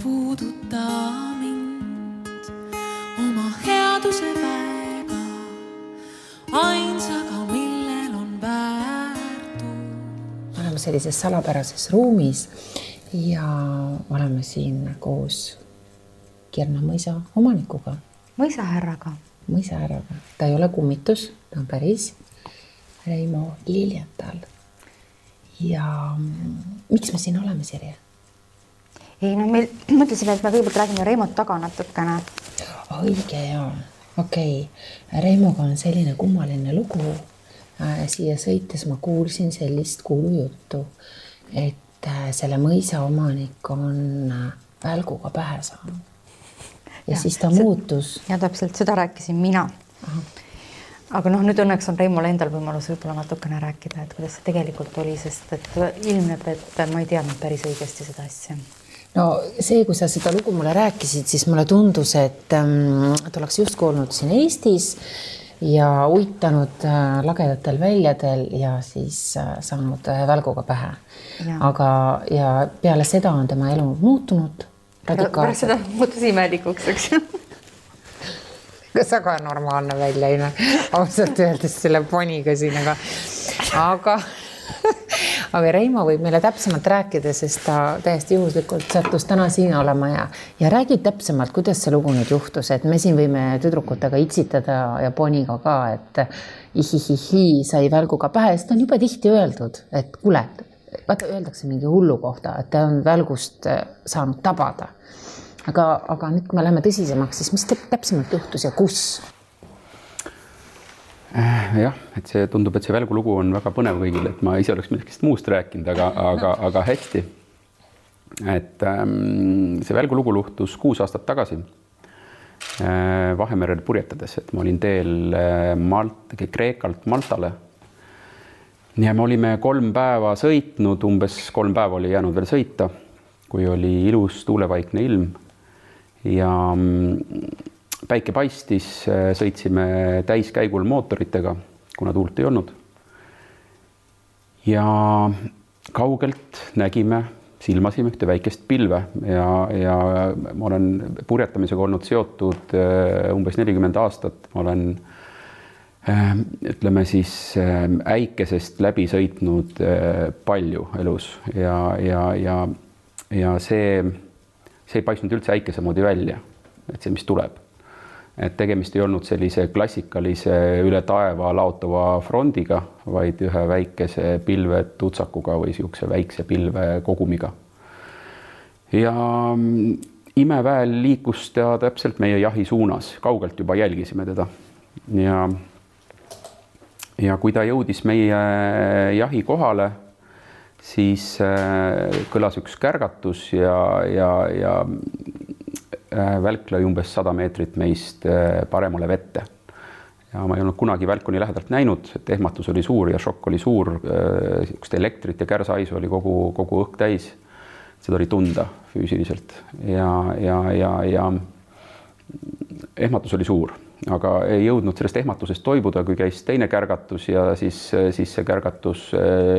puuduta mind oma headuse väega, ainsaga, millel on väärtus. Oleme sellises salapärases ruumis ja oleme siin koos Kirna mõisa omanikuga. Mõisahärraga. Mõisahärraga. Ta ei ole kummitus, ta on päris Reimo Liljetal. Ja miks me siin oleme, Sirje? Ei, no me mõtlesime, et me kõigepealt räägime Reimot taga natukene. Õige, jaa. Okei. Reimoga on selline kummaline lugu. Siia sõites ma kuulsin sellist kuulujuttu, et selle mõisa omanik on välguga pähe saanud. Ja siis ta muutus. Ja täpselt seda rääkisin mina. Aha. Aga nüüd õnneks on Reimol endal võimalus võib-olla natukene rääkida, et kuidas see tegelikult oli, sest et ilmneb, et ma ei teadnud päris õigesti seda asja. No see, kui sa seda lugu mulle rääkisid, siis mulle tundus, et oleks just olnud siin Eestis ja uitanud lagedatel väljadel ja siis saanud välguga pähe. Aga ja peale seda on tema elu muutunud radikaalselt. Pärast seda muutus imelikuks, eks ju? Kas aga normaalne välja, ei näe? Ausalt öeldes selle poniga siin, aga Reimo võib meile täpsemalt rääkida, sest ta täiesti juhuslikult sattus täna siin olema ja räägib täpsemalt, kuidas see lugu nüüd juhtus, et me siin võime tüdrukutega itsitada ja poniga ka, et ihihihi sai välguga pähe, sest on juba tihti öeldud, et kuule, vaata, öeldakse mingi hullu kohta, et ta on välgust saanud tabada. Aga nüüd, kui me läheme tõsisemaks, siis mis täpsemalt juhtus ja kus? Jah, et see tundub, et see välgulugu on väga põnev kõigile, et ma ise oleks millest muust rääkinud, aga hästi. Et see välgulugu luhtus 6 aastat tagasi Vahemerel purjetades, et ma olin teel Kreekalt Maltale. Ja me olime 3 päeva sõitnud, umbes 3 päeva oli jäänud veel sõita, kui oli ilus tuulevaikne ilm. Ja päike paistis, sõitsime täiskäigul mootoritega, kuna tuult ei olnud. Ja kaugelt nägime, silmasime ühte väikest pilve ja ma olen purjetamisega olnud seotud umbes 40 aastat. Ma olen, ütleme siis, äikesest läbi sõitnud palju elus ja see ei paistnud üldse äikese moodi välja, et see, mis tuleb. Et tegemist ei olnud sellise klassikalise üle taeva laotava frondiga, vaid ühe väikese pilve tutsakuga või siukse väikse pilve kogumiga. Ja imeväel liikus ta täpselt meie jahi suunas, kaugelt juba jälgisime teda. Ja kui ta jõudis meie jahi kohale, siis kõlas üks kärgatus ja välk lõi umbes 100 meetrit meist paremale vette. Ja ma ei olnud kunagi välku nii lähedalt näinud, et ehmatus oli suur ja šokk oli suur, elektrit ja kärsaisu oli kogu õhk täis. Seda oli tunda füüsiliselt ja ehmatus oli suur. Aga ei jõudnud sellest ehmatusest toibuda, kui käis teine kärgatus ja siis see kärgatus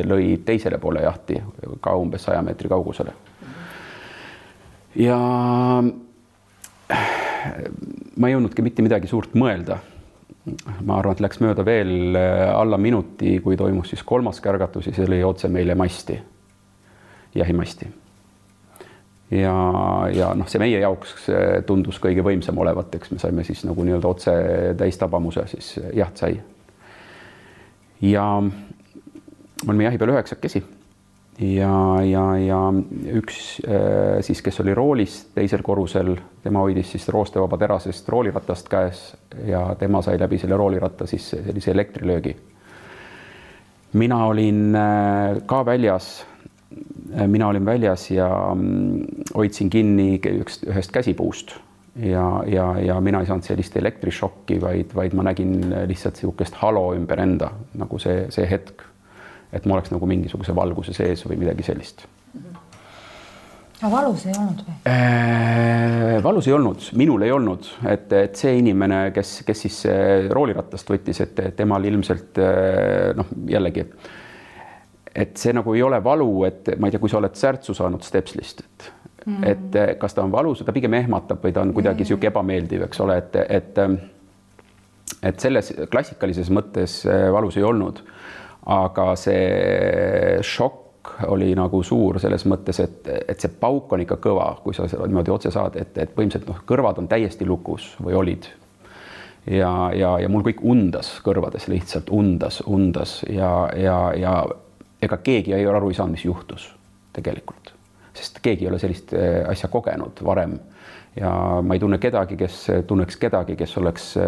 lõi teisele poole jahti ka umbes 100 meetri kaugusele. Ja ma ei jõudnudki mitte midagi suurt mõelda. Ma arvan, et läks mööda veel alla minuti, kui toimus siis 3. kärgatus ja see lõi otse meile masti, jahimasti. Ja see meie jaoks tundus kõige võimsam olevat, eks me saime siis nagu nii-öelda otse täistabamuse, siis jaht sai. Ja me olime jahi peal 9 ja üks siis, kes oli roolis teisel korrusel, tema hoidis siis roostevaba terasest rooliratast käes ja tema sai läbi selle rooliratta siis sellise elektrilöögi. Mina olin ka väljas. Mina olin väljas ja hoidsin kinni ühest käsipuust ja mina ei saanud sellist elektrišokki, vaid ma nägin lihtsalt siukest halo ümber enda, nagu see hetk, et ma oleks nagu mingisuguse valguse sees või midagi sellist. Aga valus ei olnud või? Valus ei olnud, minul ei olnud, et see inimene, kes siis rooliratast võttis, et temal ilmselt jällegi, et see nagu ei ole valu, et ma ei tea, kui sa oled särtsu saanud stepslist, et kas ta on valus, ta pigem ehmatab või ta on kuidagi sihuke ebameeldiv, eks ole, et selles klassikalises mõttes valus ei olnud, aga see šokk oli nagu suur selles mõttes, et see pauk on ikka kõva, kui sa niimoodi otse saad, et põhimõtteliselt kõrvad on täiesti lukus või olid. Ja mul kõik undas kõrvades, lihtsalt undas ja ega keegi ei ole aru ei saanud, mis juhtus tegelikult, sest keegi ei ole sellist asja kogenud varem ja ma ei tunne kedagi, kes tunneks kedagi, kes oleks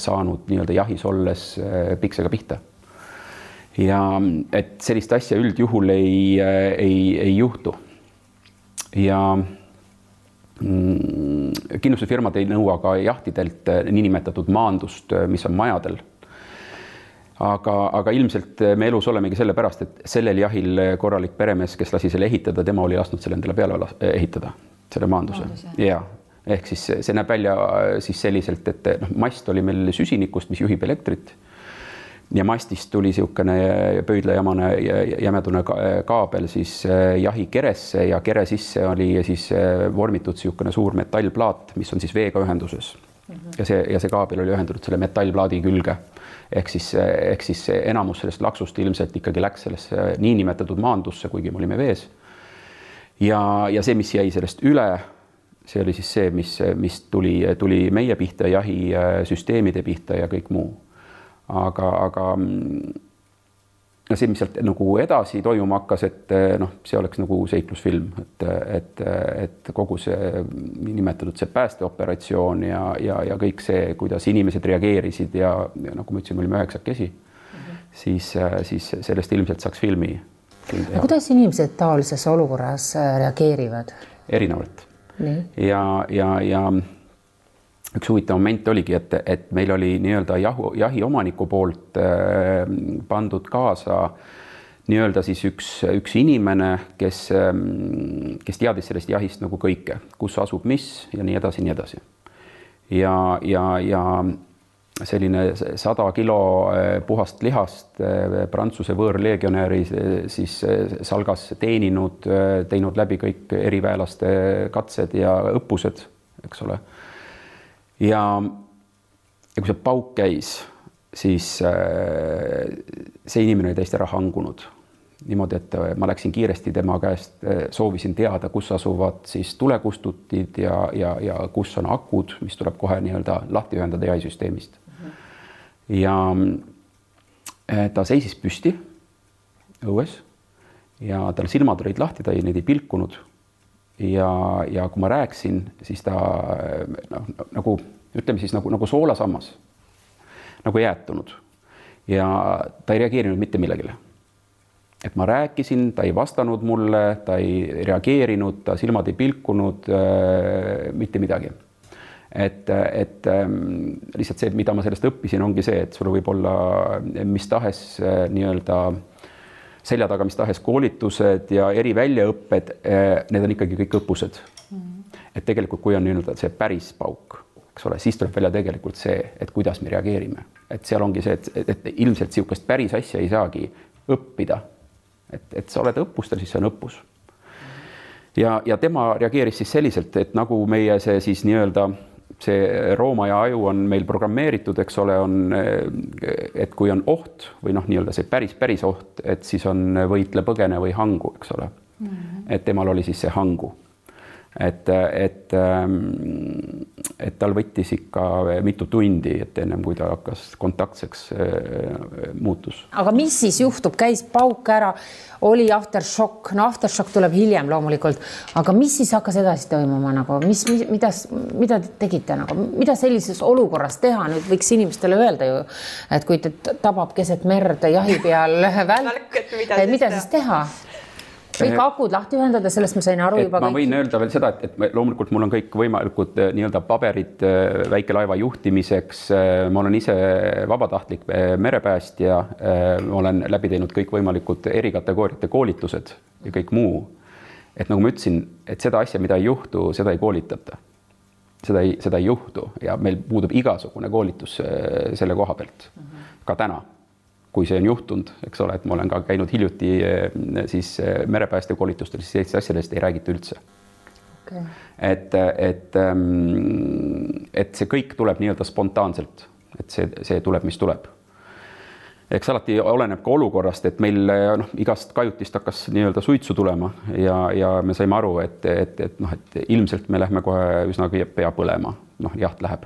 saanud nii-öelda jahis olles piksega pihta. Ja et sellist asja üldjuhul ei juhtu. Ja kindlustusfirmad ei nõua ka jahtidelt niinimetatud maandust, mis on majadel. Aga ilmselt me elus olemegi selle pärast, et sellel jahil korralik peremees, kes lasi selle ehitada, tema oli lasknud selle endale peale ehitada, selle maanduse. Ja, ehk siis see näeb välja siis selliselt, et mast oli meil süsinikust, mis juhib elektrit. Ja mastist tuli siukene pöidlajamane jämedune kaabel siis jahi keresse ja kere sisse oli siis vormitud siukene suur metallplaat, mis on siis veega ühenduses. Ja see kaabel oli ühendatud selle metallplaadi külge. Ehk siis enamus sellest laksust ilmselt ikkagi läks sellesse niinimetatud maandusse, kuigi me olime vees. Ja see, mis jäi sellest üle, see oli siis see, mis tuli meie pihta, jahi süsteemide pihta ja kõik muu. Aga see, mis sealt nagu edasi toimuma hakkas, et see oleks nagu seiklusfilm, et kogu see nimetatud see päästeoperatsioon ja kõik see, kuidas inimesed reageerisid ja nagu ma ütlesin, me olime 9 siis sellest ilmselt saaks filmi. Kuidas inimesed taolises olukorras reageerivad? Erinevalt. Ja üks huvitav moment oligi, et meil oli nii-öelda jahi omaniku poolt pandud kaasa nii-öelda siis üks inimene, kes teadis sellest jahist nagu kõike, kus asub mis ja nii edasi, nii edasi. Ja selline 100 kilo puhast lihast Prantsuse võõrlegionäri siis salgas teinud läbi kõik eriväelaste katsed ja õppused, eks ole. Ja kui see pauk käis, siis see inimene oli täiesti ära hangunud. Niimoodi, et ma läksin kiiresti tema käest, soovisin teada, kus asuvad siis tulekustutid ja kus on akud, mis tuleb kohe nii-öelda lahti ühendada jahisüsteemist. Ja ta seisis püsti õues ja tal silmad olid lahti, ta neid ei pilkunud. Ja kui ma rääksin, siis ta nagu, ütleme siis nagu soolasammas, nagu jäätunud ja ta ei reageerinud mitte millegile. Et ma rääkisin, ta ei vastanud mulle, ta ei reageerinud, ta silmad ei pilkunud, mitte midagi. Et lihtsalt see, mida ma sellest õppisin, ongi see, et sul võib olla mis tahes nii-öelda selja taga mis tahes koolitused ja eri väljaõpped, need on ikkagi kõik õppused. Et tegelikult, kui on nii-öelda see päris pauk, eks ole, siis tuleb välja tegelikult see, et kuidas me reageerime. Et seal ongi see, et ilmselt siukest päris asja ei saagi õppida. Et sa oled õppustel, siis see on õppus. Ja tema reageeris siis selliselt, et nagu meie see siis nii-öelda see rooma ja aju on meil programmeeritud, eks ole, et kui on oht või nii-öelda see päris oht, et siis on võitle, põgene või hangu, eks ole. Et temal oli siis see hangu. Et tal võttis ikka mitu tundi, et ennem kui ta hakkas kontaktseks muutus. Aga mis siis juhtub? Käis pauk ära, oli aftershock, aftershock tuleb hiljem loomulikult, aga mis siis hakkas edasi toimuma? Mida te tegite? Mida sellises olukorras teha? Nüüd võiks inimestele öelda ju, et kui te tabab keset merd jahi peal välk, mida siis teha? Kõik akud lahti ühendada, sellest ma sain aru juba. Ma võin öelda veel seda, et loomulikult mul on kõik võimalikud nii-öelda paberid väikelaeva juhtimiseks. Ma olen ise vabatahtlik merepäästja. Ma olen läbi teinud kõik võimalikud erikategooriate koolitused ja kõik muu. Et nagu ma ütlesin, et seda asja, mida ei juhtu, seda ei koolitata. Seda ei juhtu ja meil puudub igasugune koolitus selle koha pealt. Ka täna. Kui see on juhtunud, eks ole, et ma olen ka käinud hiljuti siis merepääste koolitustel, siis sellist asjadest ei räägita üldse. Okay. Et see kõik tuleb nii-öelda spontaanselt, et see tuleb, mis tuleb. Eks alati oleneb ka olukorrast, et meil igast kajutist hakkas nii-öelda suitsu tulema ja me saime aru, et ilmselt me lähme kohe üsna pea põlema, jaht läheb.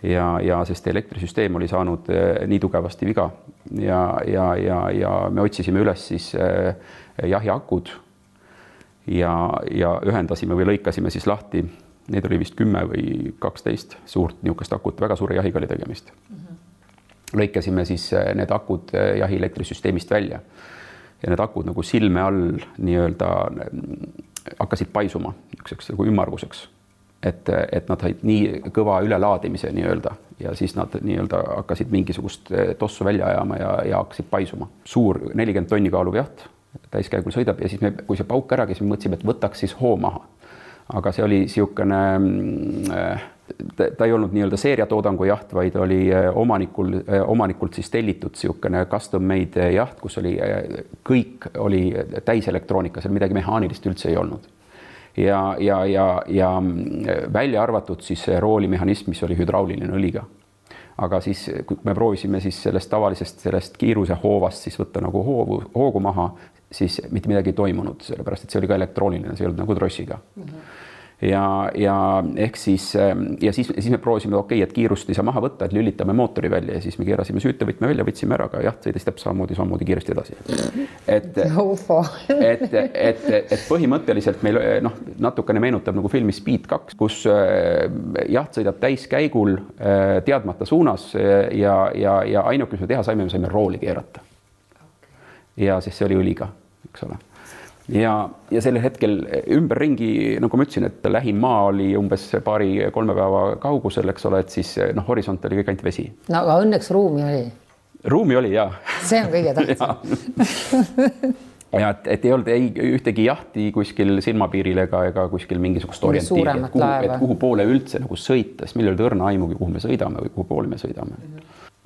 Ja sest elektrisüsteem oli saanud nii tugevasti viga ja me otsisime üles siis jahiakud ja ühendasime või lõikasime siis lahti. Need oli vist 10 või 12 suurt niisugust akut, väga suure jahiga oli tegemist. Lõikasime siis need akud jahi elektrisüsteemist välja ja need akud nagu silme all nii-öelda hakkasid paisuma nagu ümmarguseks, et nad said nii kõva ülelaadimise nii-öelda ja siis nad nii-öelda hakkasid mingisugust tossu välja ajama ja hakkasid paisuma. Suur 40 tonni kaaluv jaht täiskäigul sõidab ja siis kui see pauk ära, siis me mõtlesime, et võtaks siis hoo maha. Aga see oli siukene, ta ei olnud nii-öelda seeriatoodangu jaht, vaid oli omanikult siis tellitud siukene custom made jaht, kus oli kõik oli täis elektroonika, seal midagi mehaanilist üldse ei olnud. Ja välja arvatud siis roolimehhanism, mis oli hüdrauliline õliga. Aga siis, kui me proovisime siis sellest kiiruse hoovast siis võtta nagu hoogu maha, siis mitte midagi ei toimunud, sellepärast, et see oli ka elektrooniline, see ei olnud nagu trossiga. Ja ehk siis me proovisime, et kiirust ei saa maha võtta, et lülitame mootori välja ja siis me keerasime süütevõtme välja, võtsime ära, aga jaht sõidas täpselt samamoodi kiiresti edasi. Et põhimõtteliselt meil natukene meenutab nagu filmi Speed 2, kus jaht sõidab täiskäigul teadmata suunas ja ainuke, mis me teha saime rooli keerata. Ja siis see oli õliga, eks ole. Ja sellel hetkel ümberringi, nagu ma ütlesin, et lähim maa oli umbes 2-3 päeva kaugusel, eks ole, et siis horisont oli kõik ainult vesi. No aga õnneks ruumi oli. Ruumi oli, jah. See on kõige tähtsam. Ja et ei olnud ühtegi jahti kuskil silmapiiril ega kuskil mingisugust orientiiri, et kuhu poole üldse nagu sõita, siis meil oli õrna aimugi, kuhu me sõidame või kuhu poole me sõidame.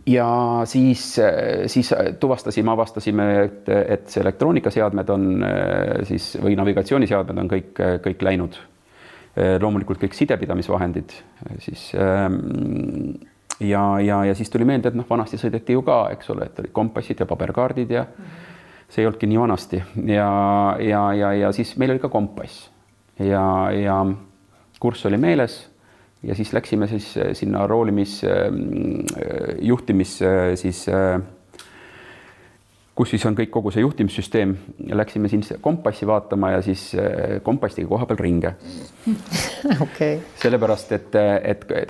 Ja siis avastasime, et see elektroonikaseadmed on siis, või navigatsiooniseadmed on kõik läinud. Loomulikult kõik sidepidamisvahendid. Siis, ja siis tuli meelde, et vanasti sõideti ju ka, eks ole, et oli kompassid ja paberkaardid ja see ei olnudki nii vanasti. Ja siis meil oli ka kompass ja kurss oli meeles. Ja siis läksime siis sinna juhtimis siis, kus siis on kogu see juhtimissüsteem ja läksime siin kompassi vaatama ja siis kompastiga koha peal ringe. Okay. Sellepärast, et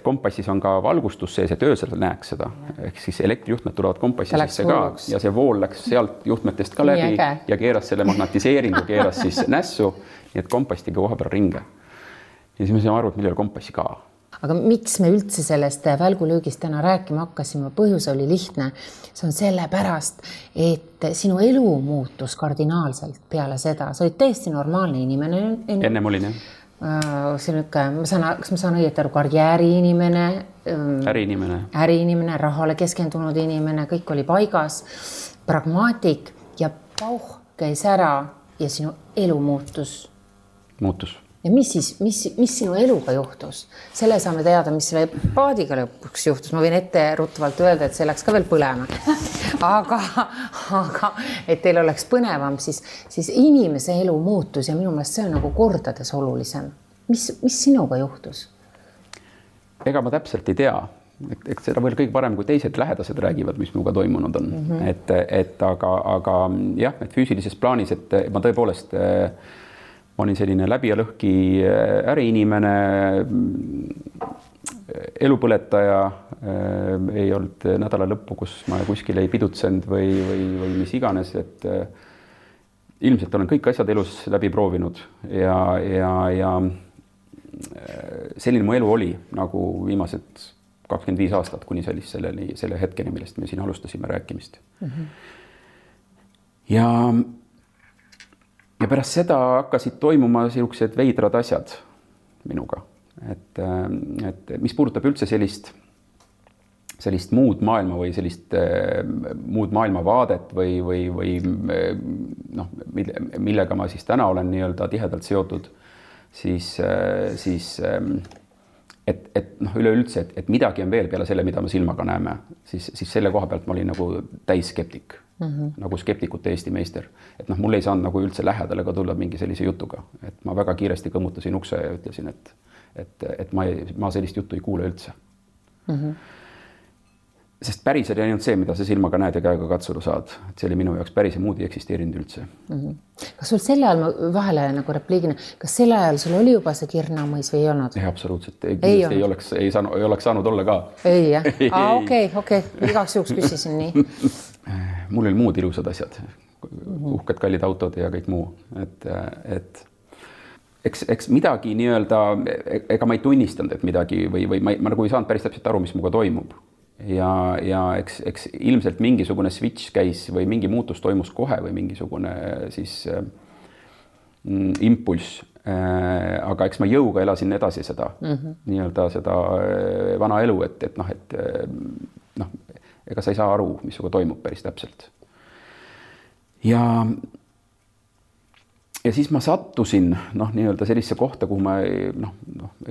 kompassis on ka valgustus sees, et öösel näeks seda. Ehk siis elektrijuhtmed tulevad kompassi sisse ka ja see vool läks sealt juhtmetest ka läbi ja keeras selle magnatiseeringu, keeras siis nässu, nii et kompastiga koha peal ringe. Ja siis me saime aru, et meil ei ole kompassi ka. Aga miks me üldse sellest välgulöögist täna rääkima hakkasime? Põhjus oli lihtne. See on sellepärast, et sinu elu muutus kardinaalselt peale seda. Sa olid täiesti normaalne inimene. Ennem olin, jah. Kas ma saan õieti aru, karjääriinimene, äriinimene, rahale keskendunud inimene, kõik oli paigas, pragmaatik ja pauh käis ära ja sinu elu muutus. Ja mis sinu eluga juhtus? Selle saame teada, mis selle paadiga lõpuks juhtus. Ma võin ette ruttavalt öelda, et see läks ka veel põlema. Aga et teil oleks põnevam, siis inimese elu muutus ja minu meelest see on nagu kordades olulisem. Mis sinuga juhtus? Ega ma täpselt ei tea. Eks seda veel kõige parem, kui teised lähedased räägivad, mis minuga toimunud on. Aga jah, et füüsilises plaanis, et ma tõepoolest ma olin selline läbi ja lõhki äriinimene, elupõletaja, ei olnud nädala lõppu, kus ma kuskil ei pidutsenud või mis iganes, et ilmselt olen kõik asjad elus läbi proovinud ja selline mu elu oli nagu viimased 25 aastat kuni selle hetkeni, millest me siin alustasime rääkimist. Ja pärast seda hakkasid toimuma sellised veidrad asjad minuga, et mis puudutab üldse sellist muud maailma või sellist muud maailmavaadet või millega ma siis täna olen nii-öelda tihedalt seotud, siis et noh, üleüldse, et midagi on veel peale selle, mida me silmaga näeme, siis selle koha pealt ma olin nagu täisskeptik, nagu skeptikute Eesti meister. Et noh, mul ei saanud nagu üldse lähedale ka tulla mingi sellise jutuga, et ma väga kiiresti kõmmutasin ukse ja ütlesin, et ma sellist juttu ei kuule üldse. Sest päris oli ainult see, mida sa silmaga näed ja käega katsuda saad. Et see oli minu jaoks päris ja muud ei eksisteerinud üldse. Kas sul selle ajal, ma vahele nagu repliigina, kas selle ajal sul oli juba see Kirnamõis või ei olnud? Ei, absoluutselt. Ei oleks saanud olla ka. Ei, jah? Okei. Igaks juhuks küsisin nii. Mul oli muud ilusad asjad. Uhked kallid autod ja kõik muu. Et eks midagi nii-öelda, ega ma ei tunnistanud, et midagi või ma nagu ei saanud päris täpselt aru, mis muga toimub. Ja eks ilmselt mingisugune switch käis või mingi muutus toimus kohe või mingisugune siis impulss. Aga eks ma jõuga elasin edasi seda, nii-öelda seda vana elu, et ega sa ei saa aru, mis suga toimub päris täpselt. Ja siis ma sattusin nii-öelda sellisse kohta, kuhu ma ei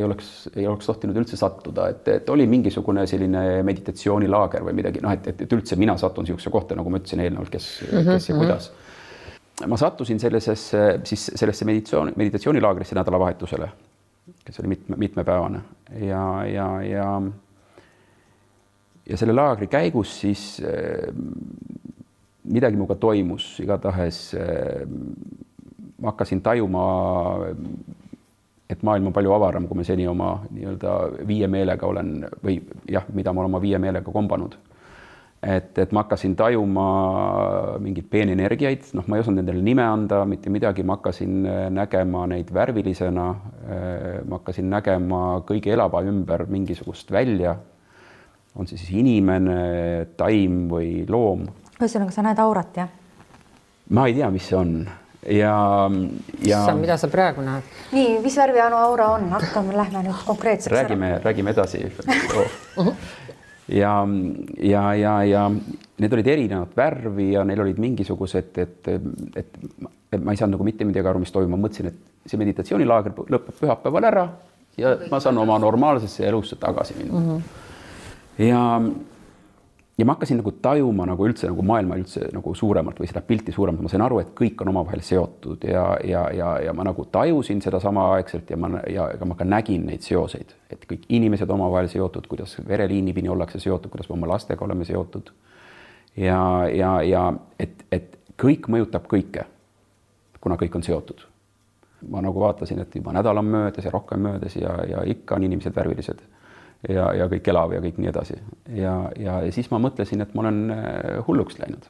oleks tohtinud üldse sattuda, et oli mingisugune selline meditatsioonilaager või midagi, et üldse mina sattun siukse kohta, nagu ma ütlesin eelnevalt, kes ja kuidas. Ma sattusin sellesse meditatsioonilaagrisse nädalavahetusele, kes oli mitmepäevane ja selle laagri käigus siis midagi muga toimus, igatahes ma hakkasin tajuma, et maailm on palju avaram, kui me seni oma nii-öelda viie meelega olen või jah, mida ma olen oma viie meelega kombanud. Et ma hakkasin tajuma mingeid peenenergiaid, ma ei osanud nendele nime anda, mitte midagi, ma hakkasin nägema neid värvilisena, ma hakkasin nägema kõige elava ümber mingisugust välja, on see siis inimene, taim või loom. Ühesõnaga, sa näed aurat, jah? Ma ei tea, mis see on. Mida sa praegu näed? Nii, mis värvi aura on? Lähme nüüd konkreetseks räägime edasi. Ja need olid erinevad värvi ja neil olid mingisugused, et ma ei saanud nagu mitte midagi aru, mis toimub. Ma mõtlesin, et see meditatsioonilaager lõpeb pühapäeval ära ja ma saan oma normaalsesse elusse tagasi minna. Ja ma hakkasin nagu tajuma nagu üldse nagu maailma üldse nagu suuremalt või seda pilti suuremalt. Ma sain aru, et kõik on omavahel seotud ja ma nagu tajusin seda sama aegselt ja ma ka nägin neid seoseid, et kõik inimesed omavahel seotud, kuidas vereliinipini ollakse seotud, kuidas me oma lastega oleme seotud ja et kõik mõjutab kõike, kuna kõik on seotud. Ma nagu vaatasin, et juba nädal on möödas ja rohkem möödas ja ikka on inimesed värvilised. Ja kõik elav ja kõik nii edasi. Ja siis ma mõtlesin, et ma olen hulluks läinud.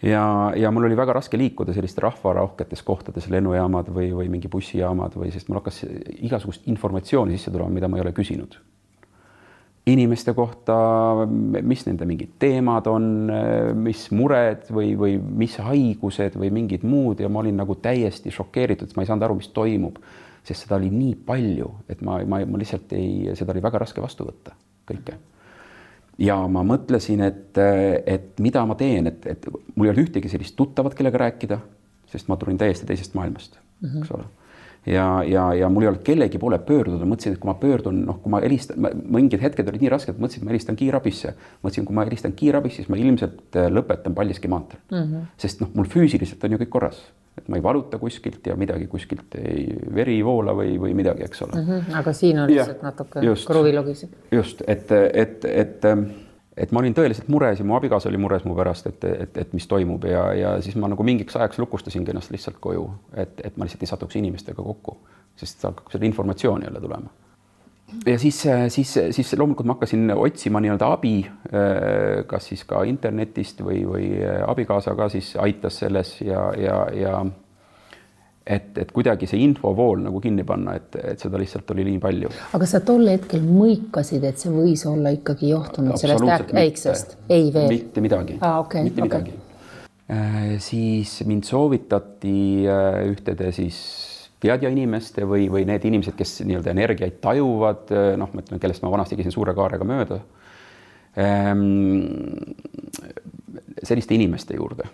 Ja mul oli väga raske liikuda selliste rahvarohketes kohtades, lennujaamad või mingi bussijaamad sest mul hakkas igasugust informatsiooni sisse tulema, mida ma ei ole küsinud. Inimeste kohta, mis nende mingid teemad on, mis mured või mis haigused või mingid muud ja ma olin nagu täiesti šokeeritud, et ma ei saanud aru, mis toimub. Sest seda oli nii palju, et ma lihtsalt seda oli väga raske vastu võtta kõike. Ja ma mõtlesin, et mida ma teen, et mul ei ole ühtegi sellist tuttavat, kellega rääkida, sest ma tulin täiesti teisest maailmast, eks ole. Ja mul ei olnud kellegi poole pöörduda, mõtlesin, et kui ma pöördun, kui ma helistan, mingid hetked olid nii rasked, mõtlesin, et ma helistan kiirabisse. Mõtlesin, kui ma helistan kiirabisse, siis ma ilmselt lõpetan Paldiski maanteel. Sest mul füüsiliselt on ju kõik korras. Et ma ei valuta kuskilt ja midagi kuskilt ei veri voola või midagi, eks ole. Aga siin on lihtsalt natuke kruvilogis. Just, et ma olin tõeliselt mures ja mu abikaasa oli mures mu pärast, et mis toimub ja siis ma nagu mingiks ajaks lukustasin ennast lihtsalt koju, et ma lihtsalt ei satuks inimestega kokku, sest hakkab seda informatsiooni jälle tulema. Ja siis loomulikult ma hakkasin otsima nii-öelda abi, kas siis ka internetist või abikaasa ka siis aitas selles ja et kuidagi see infovool nagu kinni panna, et seda lihtsalt oli nii palju. Aga sa tol hetkel mõikasid, et see võis olla ikkagi johtunud sellest äiksest? Ei veel? Mitte midagi. Mitte midagi. Siis mind soovitati ühtede siis teadja inimeste või need inimesed, kes nii-öelda energiaid tajuvad, kellest ma vanasti käisin suure kaarega mööda, selliste inimeste juurde.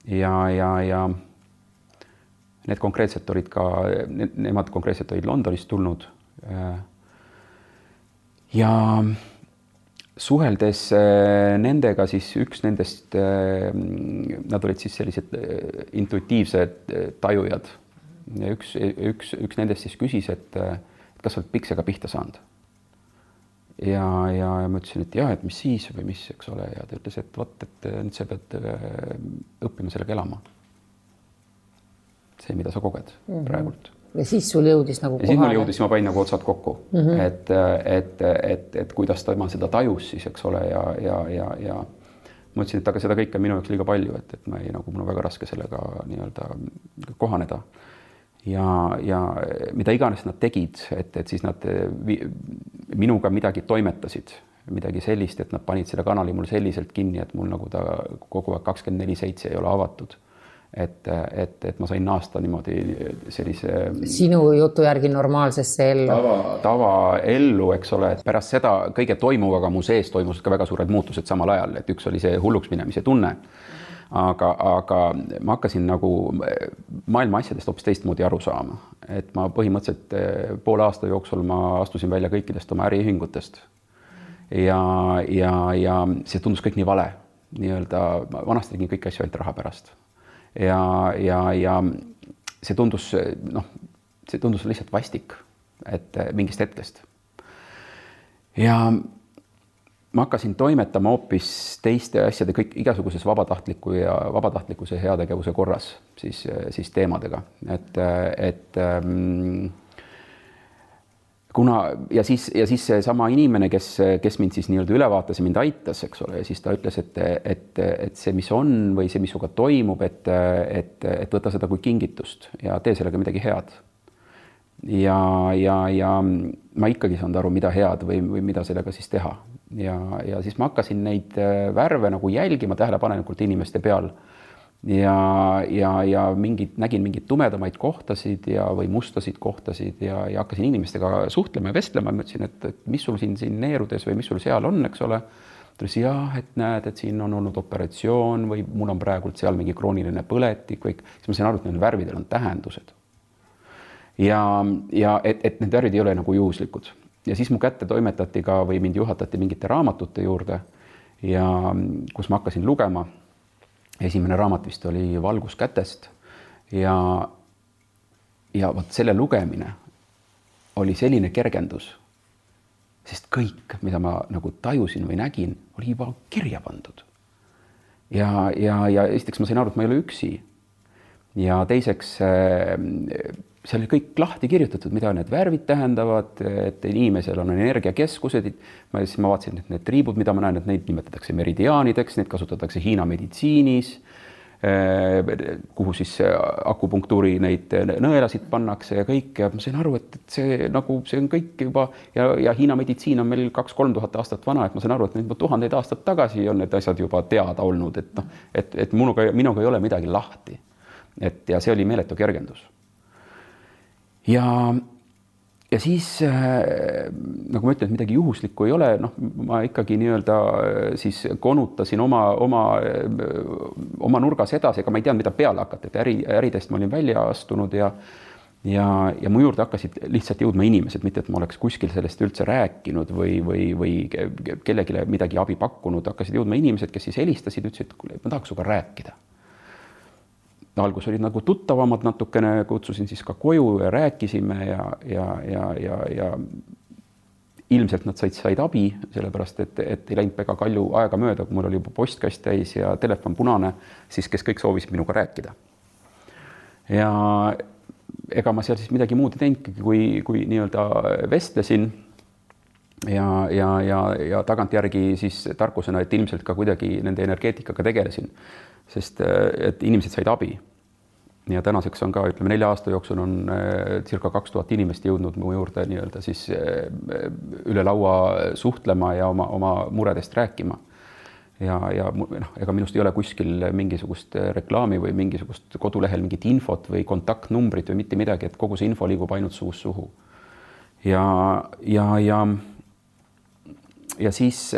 Ja Need konkreetselt olid ka, nemad konkreetselt olid Londonist tulnud. Ja suheldes nendega siis üks nendest, nad olid siis sellised intuitiivsed tajujad. Ja üks nendest siis küsis, et kas oled piksega pihta saanud. Ja ma ütlesin, et jah, et mis siis või mis, eks ole. Ja ta ütles, et võt, et nüüd sa pead õppima sellega elama. See, mida sa koged praegult. Ja siis sul jõudis nagu kohale? Ja siis mul jõudis, ma panin nagu otsad kokku, et kuidas ta seda tajus siis, eks ole, ja ma ütlesin, et aga seda kõike minu jaoks liiga palju, et ma ei, nagu mul on väga raske sellega nii-öelda kohaneda. Ja mida iganes nad tegid, et siis nad minuga midagi toimetasid, midagi sellist, et nad panid selle kanali mul selliselt kinni, et mul nagu ta kogu aeg 24/7 ei ole avatud. Et ma sain naasta niimoodi sellise sinu jutu järgi normaalsesse ellu. Tava ellu, eks ole, et pärast seda kõige toimuvaga mu sees toimusid ka väga suured muutused samal ajal, et üks oli see hulluks minemise tunne. Aga ma hakkasin nagu maailma asjadest hoopis teistmoodi aru saama. Et ma põhimõtteliselt poole aasta jooksul ma astusin välja kõikidest oma äriühingutest. Ja see tundus kõik nii vale. Nii-öelda vanasti tegin kõiki asju ainult raha pärast. Ja see tundus lihtsalt vastik, et mingist hetkest. Ja ma hakkasin toimetama hoopis teiste asjade kõik igasuguses vabatahtlikkuse heategevuse korras siis teemadega, kuna ja siis see sama inimene, kes mind siis nii-öelda üle vaatas ja mind aitas, eks ole, ja siis ta ütles, et see, mis on või see, mis suga toimub, et võta seda kui kingitust ja tee sellega midagi head. Ja ma ikkagi saanud aru, mida head või mida sellega siis teha. Ja siis ma hakkasin neid värve nagu jälgima tähelepanelikult inimeste peal. Ja nägin mingid tumedamaid kohtasid või mustasid kohtasid ja hakkasin inimestega suhtlema ja vestlema. Ma ütlesin, et mis sul siin neerudes või mis sul seal on, eks ole. Ta ütles, jah, et näed, et siin on olnud operatsioon või mul on praegult seal mingi krooniline põletik või siis ma sain aru, et need värvidel on tähendused. Ja et need värvid ei ole nagu juhuslikud. Ja siis mu kätte toimetati ka või mind juhatati mingite raamatute juurde ja kus ma hakkasin lugema. Esimene raamat vist oli Valgus kätest ja võt selle lugemine oli selline kergendus, sest kõik, mida ma nagu tajusin või nägin, oli juba kirja pandud. Ja esiteks ma sain aru, et ma ei ole üksi. Ja teiseks seal oli kõik lahti kirjutatud, mida need värvid tähendavad, et inimesel on energiakeskused. Ma vaatasin, et need triibud, mida ma näen, et neid nimetatakse meridiaanideks, neid kasutatakse Hiina meditsiinis, kuhu siis akupunktuuri neid nõelasid pannakse ja kõik. Ja ma sain aru, et see on kõik juba ja Hiina meditsiin on meil 2-3 aastat vana, et ma sain aru, et need 1000 aastat tagasi on need asjad juba teada olnud, et minuga ei ole midagi lahti. Ja see oli meeletu kergendus. Ja siis, nagu ma ütlen, et midagi juhuslikku ei ole, ma ikkagi nii-öelda siis konutasin oma nurgas edasi, ega ma ei teadnud, mida peale hakata, et äridest ma olin välja astunud ja mu juurde hakkasid lihtsalt jõudma inimesed, mitte et ma oleks kuskil sellest üldse rääkinud või kellegile midagi abi pakkunud, hakkasid jõudma inimesed, kes siis helistasid, ütlesid, et ma tahaks suga rääkida. Algus olid nagu tuttavamad natukene, kutsusin siis ka koju ja rääkisime ja ilmselt nad said abi, sellepärast, et ei läinud väga palju aega mööda, kui mul oli juba postkast täis ja telefon punane, siis kes kõik soovisid minuga rääkida. Ja ega ma seal siis midagi muud ei teinud, kui nii-öelda vestlesin ja tagantjärgi siis tarkusena, et ilmselt ka kuidagi nende energeetikaga tegelesin. Sest et inimesed said abi. Ja tänaseks on ka, 4 aasta jooksul on circa 2000 inimest jõudnud mu juurde nii-öelda siis üle laua suhtlema ja oma muredest rääkima. Ja ega minust ei ole kuskil mingisugust reklaami või mingisugust kodulehel mingit infot või kontaktnumbrit või mitte midagi, et kogu see info liigub ainult suust suhu. Ja ja siis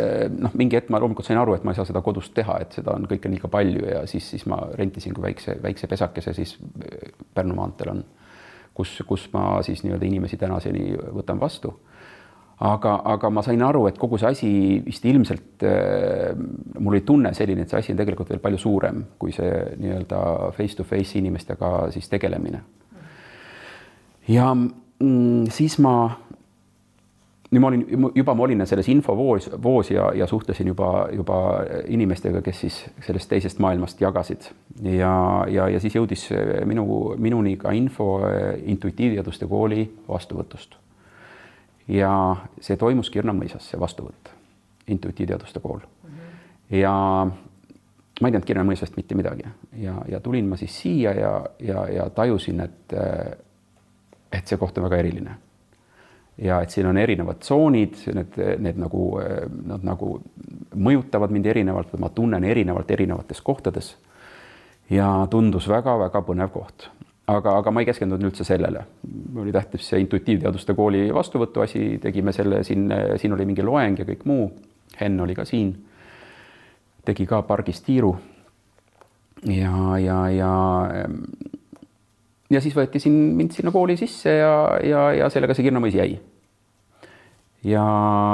mingi hetk ma loomulikult sain aru, et ma ei saa seda kodust teha, et seda on kõike liiga palju ja siis ma rentisin kui väikse pesakese siis Pärnu maanteel on, kus ma siis nii-öelda inimesi tänaseni võtan vastu. Aga ma sain aru, et kogu see asi vist ilmselt, mul oli tunne selline, et see asi on tegelikult veel palju suurem kui see nii-öelda face to face inimestega siis tegelemine. Ja siis ma olin selles infovoos ja suhtlesin juba inimestega, kes siis sellest teisest maailmast jagasid. Ja siis jõudis minuni ka info intuitiivteaduste kooli vastuvõtust. Ja see toimus Kirna-Mõisas, see vastuvõtt, intuitiivteaduste kool. Ja ma ei teadnud Kirna-Mõisast mitte midagi. Ja tulin ma siis siia ja tajusin, et see koht on väga eriline. Ja et siin on erinevad tsoonid, need nagu mõjutavad mind erinevalt, ma tunnen erinevates kohtades. Ja tundus väga-väga põnev koht. Aga ma ei keskendunud üldse sellele. Oli tähtis see intuitiivteaduste kooli vastuvõtu asi, tegime selle, siin oli mingi loeng ja kõik muu. Henn oli ka siin, tegi ka pargis tiiru. Ja siis võeti mind sinna kooli sisse ja sellega see Kirna-Mõis jäi. Ja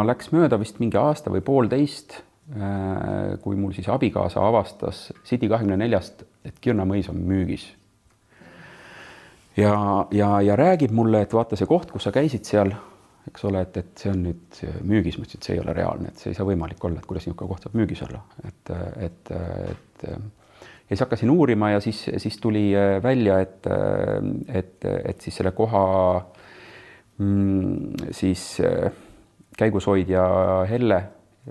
läks mööda vist mingi aasta või 1,5, kui mul siis abikaasa avastas City24-st, et Kirna-Mõis on müügis. Ja räägib mulle, et vaata see koht, kus sa käisid seal, eks ole, et see on nüüd müügis, ma ütlesin, et see ei ole reaalne, et see ei saa võimalik olla, et kuidas niisugune koht saab müügis olla. Ja siis hakkasin uurima ja siis tuli välja, et siis selle koha siis käigushoidja Helle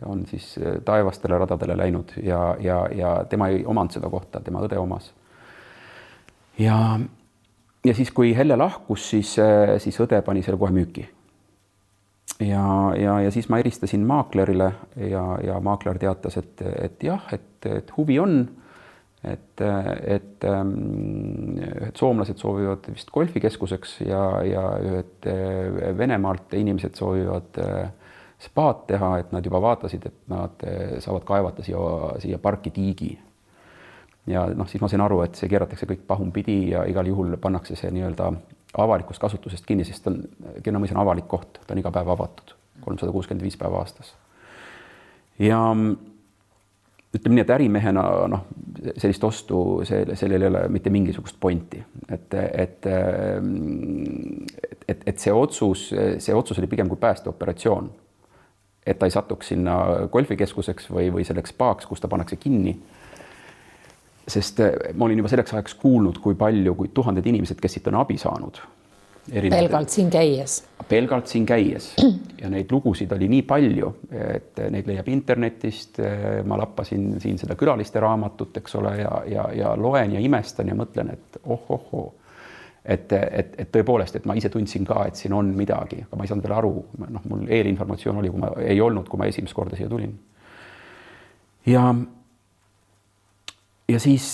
on siis taevastele radadele läinud ja tema ei omanud seda kohta, tema õde omas. Ja siis, kui Helle lahkus, siis õde pani selle kohe müüki. Ja siis ma eristasin maaklerile ja maakler teatas, et jah, et huvi on, et soomlased soovivad vist golfikeskuseks ja ühed Venemaalt inimesed soovivad spaad teha, et nad juba vaatasid, et nad saavad kaevata siia parki tiigi. Ja siis ma sain aru, et see keeratakse kõik pahumpidi ja igal juhul pannakse see nii-öelda avalikust kasutusest kinni, sest Kirna-Mõis on avalik koht, ta on iga päev avatud, 365 päeva aastas. Ja ütleme nii, et ärimehena sellist ostu, sellel ei ole mitte mingisugust pointi. Et see otsus oli pigem kui päästeoperatsioon, et ta ei satuks sinna golfikeskuseks või selleks spaaks, kus ta pannakse kinni. Sest ma olin juba selleks ajaks kuulnud, kui tuhanded inimesed, kes siit on abi saanud. Pelgalt siin käies. Ja neid lugusid oli nii palju, et neid leiab internetist. Ma lappasin siin seda külaliste raamatut, eks ole, ja loen ja imestan ja mõtlen, et et tõepoolest, et ma ise tundsin ka, et siin on midagi, aga ma ei saanud veel aru. Mul eelinformatsioon oli, kui ma esimest korda siia tulin. Ja siis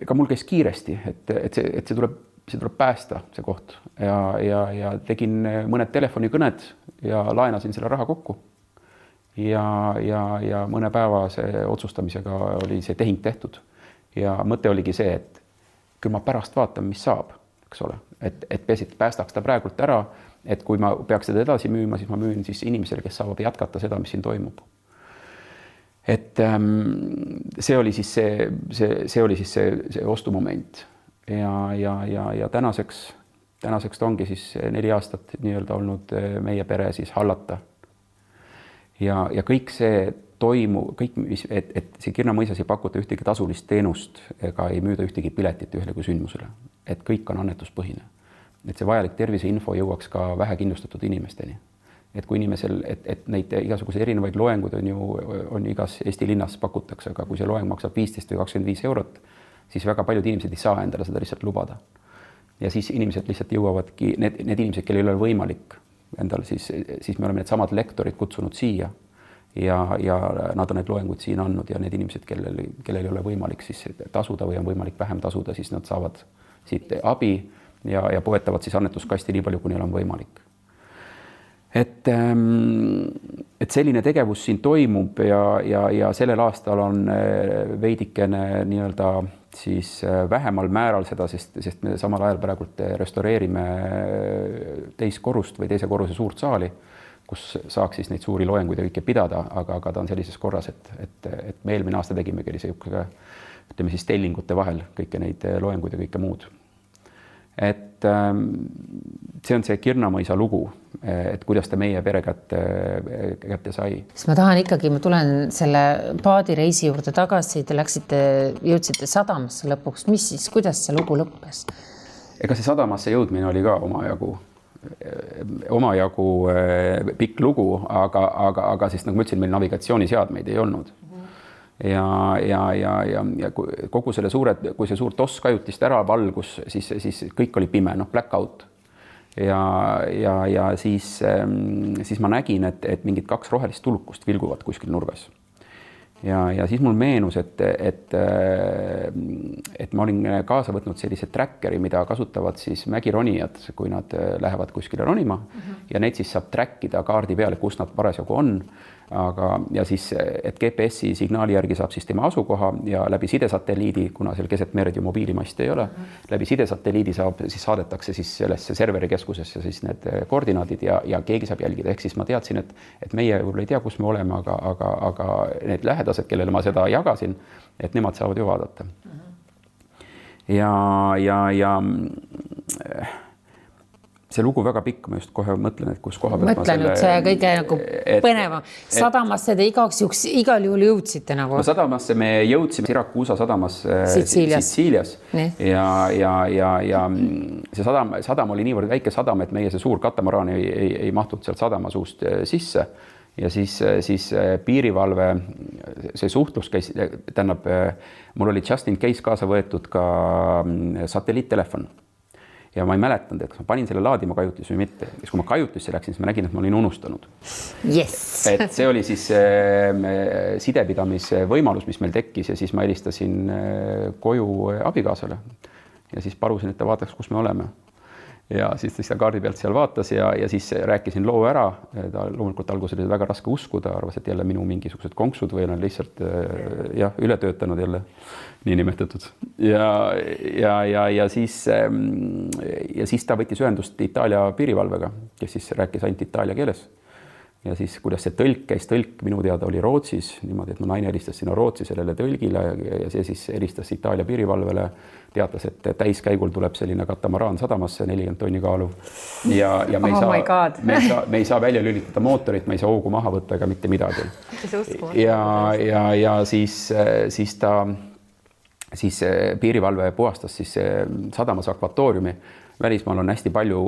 ka mul käis kiiresti, et see tuleb päästa, see koht. Ja tegin mõned telefonikõned ja laenasin selle raha kokku. Ja mõne päevase otsustamisega oli see tehing tehtud. Ja mõte oligi see, et küll ma pärast vaatan, mis saab, eks ole. Et päästaks ta praegult ära, et kui ma peaks seda edasi müüma, siis ma müün siis inimesele, kes saavad jätkata seda, mis siin toimub. Et see oli siis see ostumoment ja tänaseks ta ongi siis 4 aastat nii-öelda olnud meie pere siis hallata. Ja kõik see et see Kirna-Mõisas ei pakuta ühtegi tasulist teenust ega ei müüda ühtegi piletit ühelegi sündmusele. Et kõik on annetuspõhine. Et see vajalik terviseinfo jõuaks ka vähekindlustatud inimesteni. Et kui inimesel, et neid igasuguse erinevaid loenguid on igas Eesti linnas pakutakse, aga kui see loeng maksab 15 või 25 eurot, siis väga paljud inimesed ei saa endale seda lihtsalt lubada. Ja siis inimesed lihtsalt jõuavadki, need inimesed, kellel ei ole võimalik endal, siis me oleme need samad lektorid kutsunud siia ja nad on need loengud siin andnud ja need inimesed, kellel ei ole võimalik siis tasuda või on võimalik vähem tasuda, siis nad saavad siit abi ja poetavad siis annetuskasti nii palju, kui neil on võimalik. et selline tegevus siin toimub ja sellel aastal on veidikene nii-öelda siis vähemal määral seda, sest me samal ajal praegult restaureerime teist korrust või teise korruse suurt saali, kus saaks siis neid suuri loenguid ja kõike pidada, aga ta on sellises korras, et me eelmine aasta tegimegi ütleme siis tellingute vahel kõike neid loenguid ja kõike muud. Et see on see Kirnamõisa lugu, et kuidas ta meie pere kätte sai. Ma tulen selle paadireisi juurde tagasi, te jõudsite sadamasse lõpuks, mis siis, kuidas see lugu lõppes? Ega see sadamasse jõudmine oli ka omajagu pikk lugu, aga siis nagu ma ütlesin, meil navigatsiooniseadmeid ei olnud. Ja kogu selle kui see suur toss kajutist ära valgus, siis kõik oli pime, blackout. Ja siis ma nägin, et mingid 2 rohelist tulukust vilguvad kuskil nurgas. Ja siis mul meenus, et ma olin kaasa võtnud sellise trackeri, mida kasutavad siis mägironijad, kui nad lähevad kuskile ronima ja neid siis saab trackida kaardi peale, kus nad parasjagu on. Ja siis, et GPS-i signaali järgi saab siis tema asukoha ja läbi sidesatelliidi, kuna seal keset merd ju mobiilimasti ei ole, läbi sidesatelliidi siis saadetakse siis sellesse serverikeskusesse siis need koordinaadid ja keegi saab jälgida. Ehk siis ma teadsin, et meie võib-olla ei tea, kus me oleme, aga need lähedased, kellele ma seda jagasin, et nemad saavad ju vaadata. Ja see lugu väga pikk, ma just kohe mõtlen, et kus koha pealt see kõige nagu põneva. Sadamasse te igal juhul jõudsite nagu? No sadamasse me jõudsime Sirakuusa sadamasse Sitsiilias. Ja see sadam oli niivõrd väike sadam, et meie see suur katamaraan ei mahtud sealt sadama suust sisse. Ja siis piirivalve, see suhtlus käis, tähendab, mul oli just in case kaasa võetud ka satelliittelefon. Ja ma ei mäletanud, et kas ma panin selle laadima kajutis või mitte. Ja kui ma kajutisse läksin, siis ma nägin, et ma olin unustanud. Yes. Et see oli siis sidepidamise võimalus, mis meil tekkis ja siis ma helistasin koju abikaasale ja siis palusin, et ta vaataks, kus me oleme. Ja siis ta kaardi pealt seal vaatas ja siis rääkisin loo ära. Ta loomulikult alguses oli väga raske uskuda, arvas, et jälle minu mingisugused konksud või on lihtsalt üle töötanud jälle niinimetatud. Ja siis ta võttis ühendust Itaalia piirivalvega, kes siis rääkis ainult itaalia keeles. Ja siis, kuidas see tõlk minu teada oli Rootsis, niimoodi, et mu naine helistas sinna Rootsi sellele tõlgile ja see siis helistas Itaalia piirivalvele, teatas, et täiskäigul tuleb selline katamaraan sadamasse 40 tonni kaalu ja me ei saa välja lülitada mootorit, me ei saa hoogu maha võtta ega mitte midagi. Ja siis piirivalve puhastas siis sadamas akvatooriumi. Välismaal on hästi palju,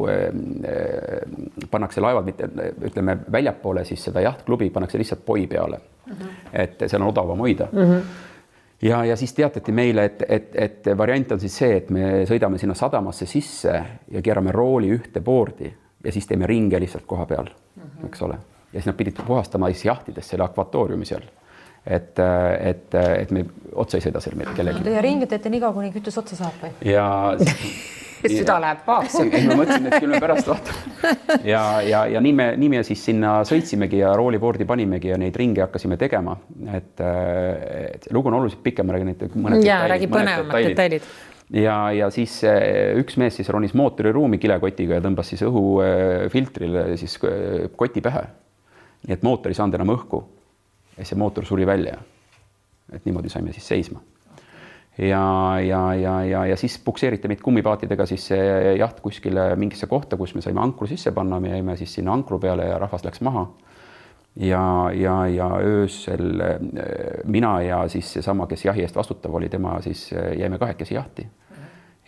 pannakse laevad, mitte, ütleme, väljapoole siis seda jahtklubi pannakse lihtsalt poi peale, et seal on odavam hoida. Ja siis teatati meile, et variant on siis see, et me sõidame sinna sadamasse sisse ja keerame rooli ühte boordi ja siis teeme ringe lihtsalt koha peal, eks ole. Ja siis nad pidid puhastama siis jahtides selle akvatooriumi seal, et me otsa ei sõida seal kellegi. Ja ringi teete nii kaua, kuni kütus otsa saab või? Ja süda läheb paakse. Ma mõtlesin, et küll me pärast vaatame. Ja nii me siis sinna sõitsimegi ja rooliboordi panimegi ja neid ringe hakkasime tegema. Et lugu on oluliselt pikem, ma räägin mõned detailid. Ja siis üks mees siis ronis mootoriruumi kilekotiga ja tõmbas siis õhufiltrile siis koti pähe. Nii et mootor ei saanud enam õhku. Ja see mootor suri välja. Et niimoodi saime siis seisma. Ja siis pukseeriti meid kummipaatidega siis jaht kuskile mingisse kohta, kus me saime ankru sisse panna, me jäime siis sinna ankru peale ja rahvas läks maha. Ja öösel mina ja siis seesama, kes jahi eest vastutav oli, tema siis jäime kahekesi jahti.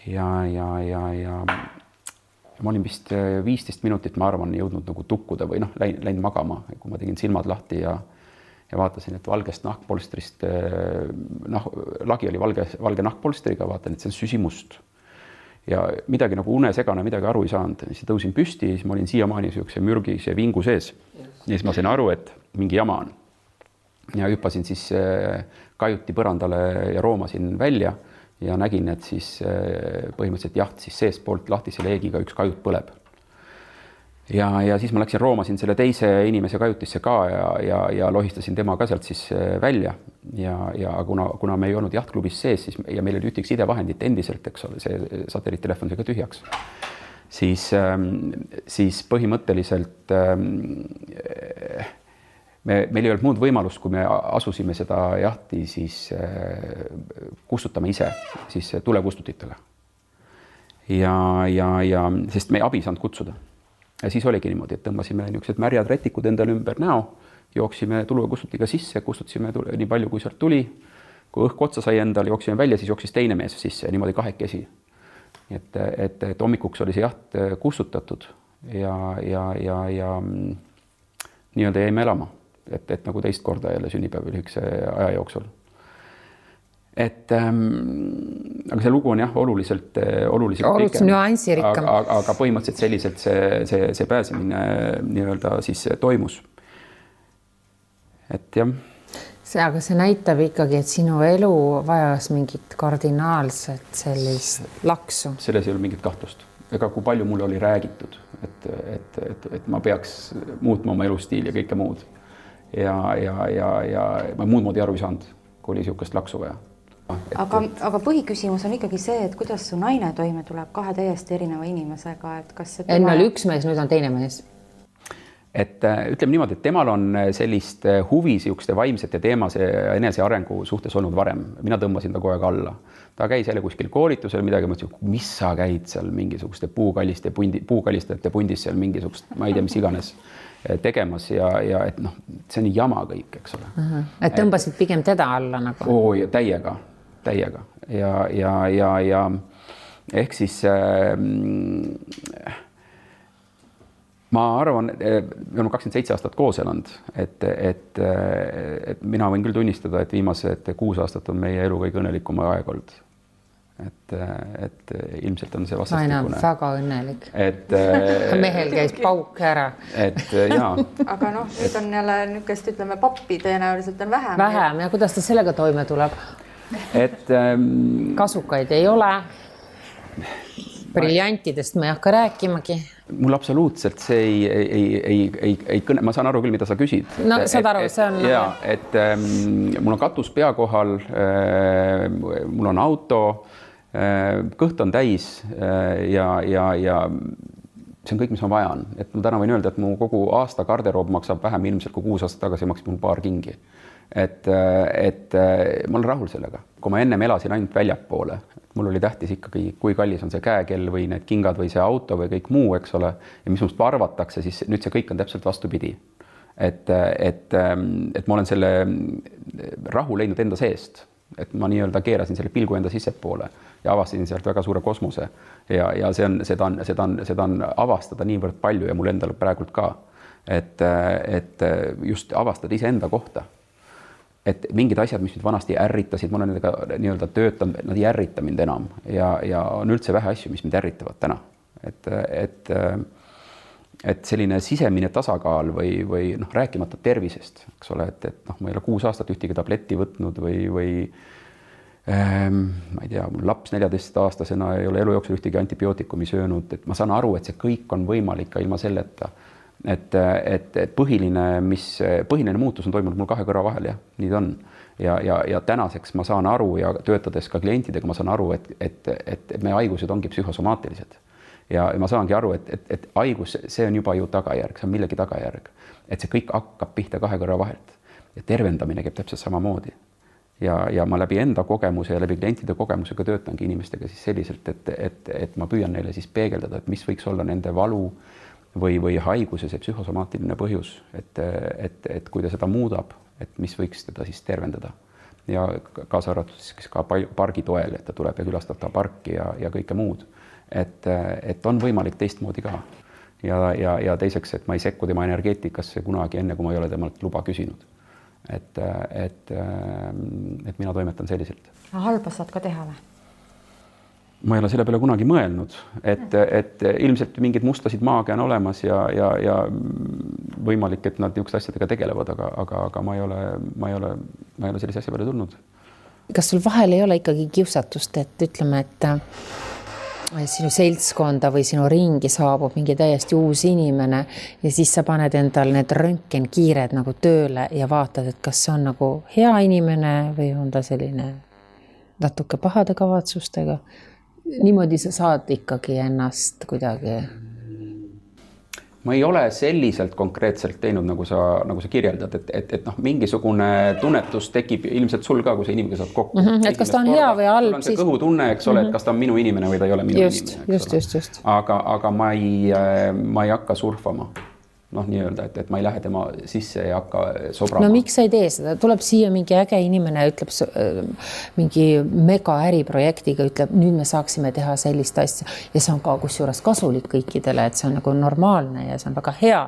Ja ma olin vist 15 minutit, ma arvan, jõudnud nagu tukkuda või läinud magama, kui ma tegin silmad lahti ja vaatasin, et valgest nahkpolstrist, lagi oli valge nahkpolstriga, vaatan, et see on süsimust. Ja midagi nagu unesegane, midagi aru ei saanud. Siis tõusin püsti, siis ma olin siiamaani siukse mürgise vingu sees. Ja siis ma sain aru, et mingi jama on. Ja hüppasin siis kajuti põrandale ja roomasin välja ja nägin, et siis põhimõtteliselt jaht siis seest poolt lahtise leegiga üks kajut põleb. ja siis ma läksin roomasin selle teise inimese kajutisse ka ja lohistasin tema ka sealt siis välja ja kuna me ei olnud jahtklubis sees, siis ja meil oli ühtegi sidevahendit endiselt, eks ole, see satelliittelefon sai ka tühjaks, siis põhimõtteliselt meil ei olnud muud võimalust, kui me asusime seda jahti siis kustutama ise siis tulekustutitega. Ja sest me abi saanud kutsuda. Ja siis oligi niimoodi, et tõmbasime niisugused märjad rätikud endale ümber näo, jooksime tulekustutiga sisse, kustutasime nii palju, kui sealt tuli. Kui õhk otsa sai endale, jooksime välja, siis jooksis teine mees sisse, niimoodi kahekesi. Et hommikuks oli see jaht kustutatud ja nii-öelda jäime elama. Et nagu teist korda jälle sünnipäev lühikese aja jooksul. Aga see lugu on jah, oluliselt pikem, nüansirikkam. Aga põhimõtteliselt selliselt see pääsemine nii-öelda siis toimus. Et jah. Aga see näitab ikkagi, et sinu elu vajas mingit kardinaalset sellist laksu. Selles ei ole mingit kahtlust. Ega kui palju mulle oli räägitud, et ma peaks muutma oma elustiili ja kõike muud. Ja ma muud moodi aru ei saanud, kui oli niisugust laksu vaja. Aga põhiküsimus on ikkagi see, et kuidas su naine toime tuleb kahe täiesti erineva inimesega, et kas see enne oli üks mees, nüüd on teine mees. Et ütleme niimoodi, et temal on sellist huvi siukeste vaimsete teemase enese arengu suhtes olnud varem. Mina tõmbasin ta kogu aeg alla. Ta käis jälle kuskil koolitusel midagi, mõtlesin, mis sa käid seal mingisuguste puukalistajate pundis seal mingisugust, ma ei tea, mis iganes tegemas ja et noh, see on jama kõik, eks ole. Et tõmbasid pigem teda alla nagu? Ja täiega. Ja ehk siis ma arvan, me oleme 27 aastat koos elanud, et mina võin küll tunnistada, et viimased 6 aastat on meie elu kõige õnnelikum aeg olnud. Et ilmselt on see vastastikune. Naine on väga õnnelik. Mehel käis pauk ära. Jaa. Aga noh, nüüd on jälle niisugust, ütleme, pappi tõenäoliselt on vähem. Vähem ja kuidas ta sellega toime tuleb? Kasukaid ei ole. Briljantidest ma ei hakka rääkimagi. Mul absoluutselt see ei kõne, ma saan aru küll, mida sa küsid. No saad aru, see on... Jaa, et mul on katus pea kohal, mul on auto, kõht on täis ja see on kõik, mis ma vajan. Et ma täna võin öelda, et mu kogu aasta garderoob maksab vähem ilmselt kui 6 aastat tagasi maksis mul paar kingi. Et ma olen rahul sellega. Kui ma ennem elasin ainult väljapoole, mul oli tähtis ikkagi, kui kallis on see käekell või need kingad või see auto või kõik muu, eks ole, ja mis must arvatakse, siis nüüd see kõik on täpselt vastupidi. Et ma olen selle rahu leidnud enda seest, et ma nii-öelda keerasin selle pilgu enda sissepoole ja avastasin sealt väga suure kosmose ja seda on avastada niivõrd palju ja mul endal praegult ka, et just avastada iseenda kohta. Et mingid asjad, mis nüüd vanasti ärritasid, ma olen nendega nii-öelda töötanud, nad ei ärrita mind enam ja on üldse vähe asju, mis mind ärritavad täna. Et selline sisemine tasakaal või noh, rääkimata tervisest, eks ole, et noh, ma ei ole 6 aastat ühtegi tabletti võtnud või ma ei tea, mul laps 14-aastasena ei ole elu jooksul ühtegi antibiootikumi söönud, et ma saan aru, et see kõik on võimalik ka ilma selleta. Et põhiline muutus on toimunud mul 2 kõrva vahel, jah, nii ta on. Ja tänaseks ma saan aru ja töötades ka klientidega, ma saan aru, et meie haigused ongi psühhosomaatilised. Ja ma saangi aru, et haigus, see on juba ju tagajärg, see on millegi tagajärg. Et see kõik hakkab pihta 2 kõrva vahelt. Ja tervendamine käib täpselt samamoodi. Ja ma läbi enda kogemuse ja läbi klientide kogemusega töötangi inimestega siis selliselt, et ma püüan neile siis peegeldada, et mis võiks olla nende valu või haiguse see psühhosomaatiline põhjus, et kui ta seda muudab, et mis võiks teda siis tervendada. Ja kaasa arvatud siis ka pargi toel, et ta tuleb ja külastab ta parki ja kõike muud. Et on võimalik teistmoodi ka. Ja teiseks, et ma ei sekku tema energeetikasse kunagi enne, kui ma ei ole temalt luba küsinud. Et mina toimetan selliselt. Halba saad ka teha või? Ma ei ole selle peale kunagi mõelnud, et ilmselt mingid mustasid maagia on olemas ja võimalik, et nad niisugust asjadega tegelevad, aga ma ei ole sellise asja peale tulnud. Kas sul vahel ei ole ikkagi kiusatust, et ütleme, et sinu seltskonda või sinu ringi saabub mingi täiesti uus inimene ja siis sa paned endal need röntgenkiired nagu tööle ja vaatad, et kas see on nagu hea inimene või on ta selline natuke pahade kavatsustega. Niimoodi sa saad ikkagi ennast kuidagi. Ma ei ole selliselt konkreetselt teinud, nagu sa kirjeldad, et mingisugune tunnetus tekib ilmselt sul ka, kui sa inimene saad kokku. Et kas ta on hea või halb. Sul on see kõhutunne, eks ole, et kas ta on minu inimene või ta ei ole minu inimene. Just. Aga ma ei hakka surfama. Nii-öelda, et ma ei lähe tema sisse ja hakka sobrama. No miks sa ei tee seda? Tuleb siia mingi äge inimene, ütleb mingi mega äriprojektiga, ütleb, nüüd me saaksime teha sellist asja ja see on ka kusjuures kasulik kõikidele, et see on nagu normaalne ja see on väga hea.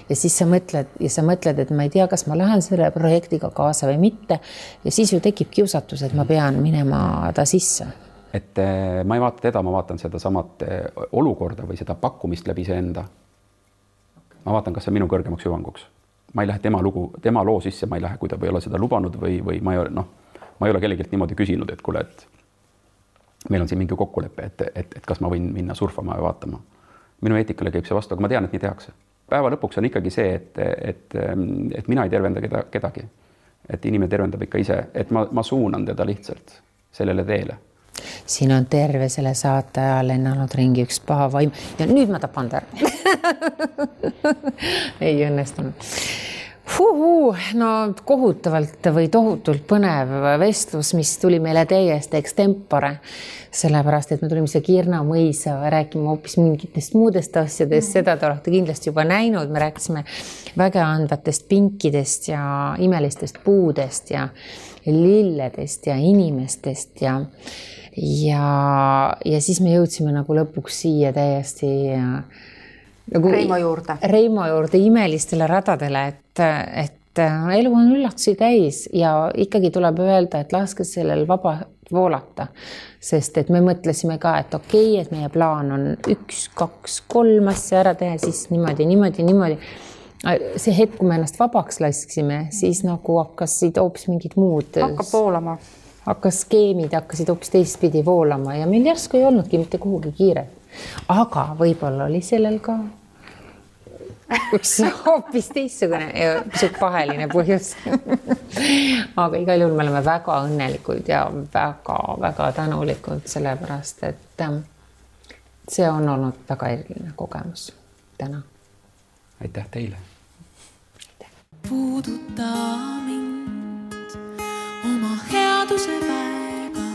Ja siis sa mõtled, et ma ei tea, kas ma lähen selle projektiga kaasa või mitte ja siis ju tekib kiusatus, et ma pean minema ta sisse. Et ma ei vaata teda, ma vaatan seda samat olukorda või seda pakkumist läbi see enda. Ma vaatan, kas see minu kõrgemaks hüvanguks. Ma ei lähe tema loo sisse, ma ei lähe, kui ta ei ole seda lubanud või ma ei ole kellegilt niimoodi küsinud, et kuule, et meil on siin mingi kokkulepe, et kas ma võin minna surfama ja vaatama. Minu eetikale käib see vastu, aga ma tean, et nii tehakse. Päeva lõpuks on ikkagi see, et mina ei tervenda kedagi. Et inimene tervendab ikka ise, et ma suunan teda lihtsalt sellele teele. Siin on terve selle saate ajal lennanud ringi üks paha vaim ja nüüd ma tapan ta ära. Ei õnnestunud. No kohutavalt või tohutult põnev vestlus, mis tuli meile täiesti extempore, sellepärast, et me tulime siia Kirna mõisa rääkima hoopis mingitest muudest asjadest, seda te olete kindlasti juba näinud, me rääkisime väga andvatest pinkidest ja imelistest puudest ja lilledest ja inimestest ja siis me jõudsime nagu lõpuks siia täiesti nagu Reimo juurde imelistele radadele, et elu on üllatusi täis ja ikkagi tuleb öelda, et laske sellel vaba voolata, sest et me mõtlesime ka, et okei, et meie plaan on 1, 2, 3 asja ära teha, siis niimoodi. See hetk, kui me ennast vabaks lasksime, siis nagu hakkasid hoopis mingid muud. Hakkab voolama. Skeemid hakkasid hoopis teistpidi voolama ja meil järsku ei olnudki mitte kuhugi kiire. Aga võib-olla oli sellel ka üks hoopis teistsugune ja pisut paheline põhjus. Aga igal juhul me oleme väga õnnelikud ja väga tänulikud sellepärast, et see on olnud väga eriline kogemus täna. Aitäh teile. Puuduta mind oma headuse väega.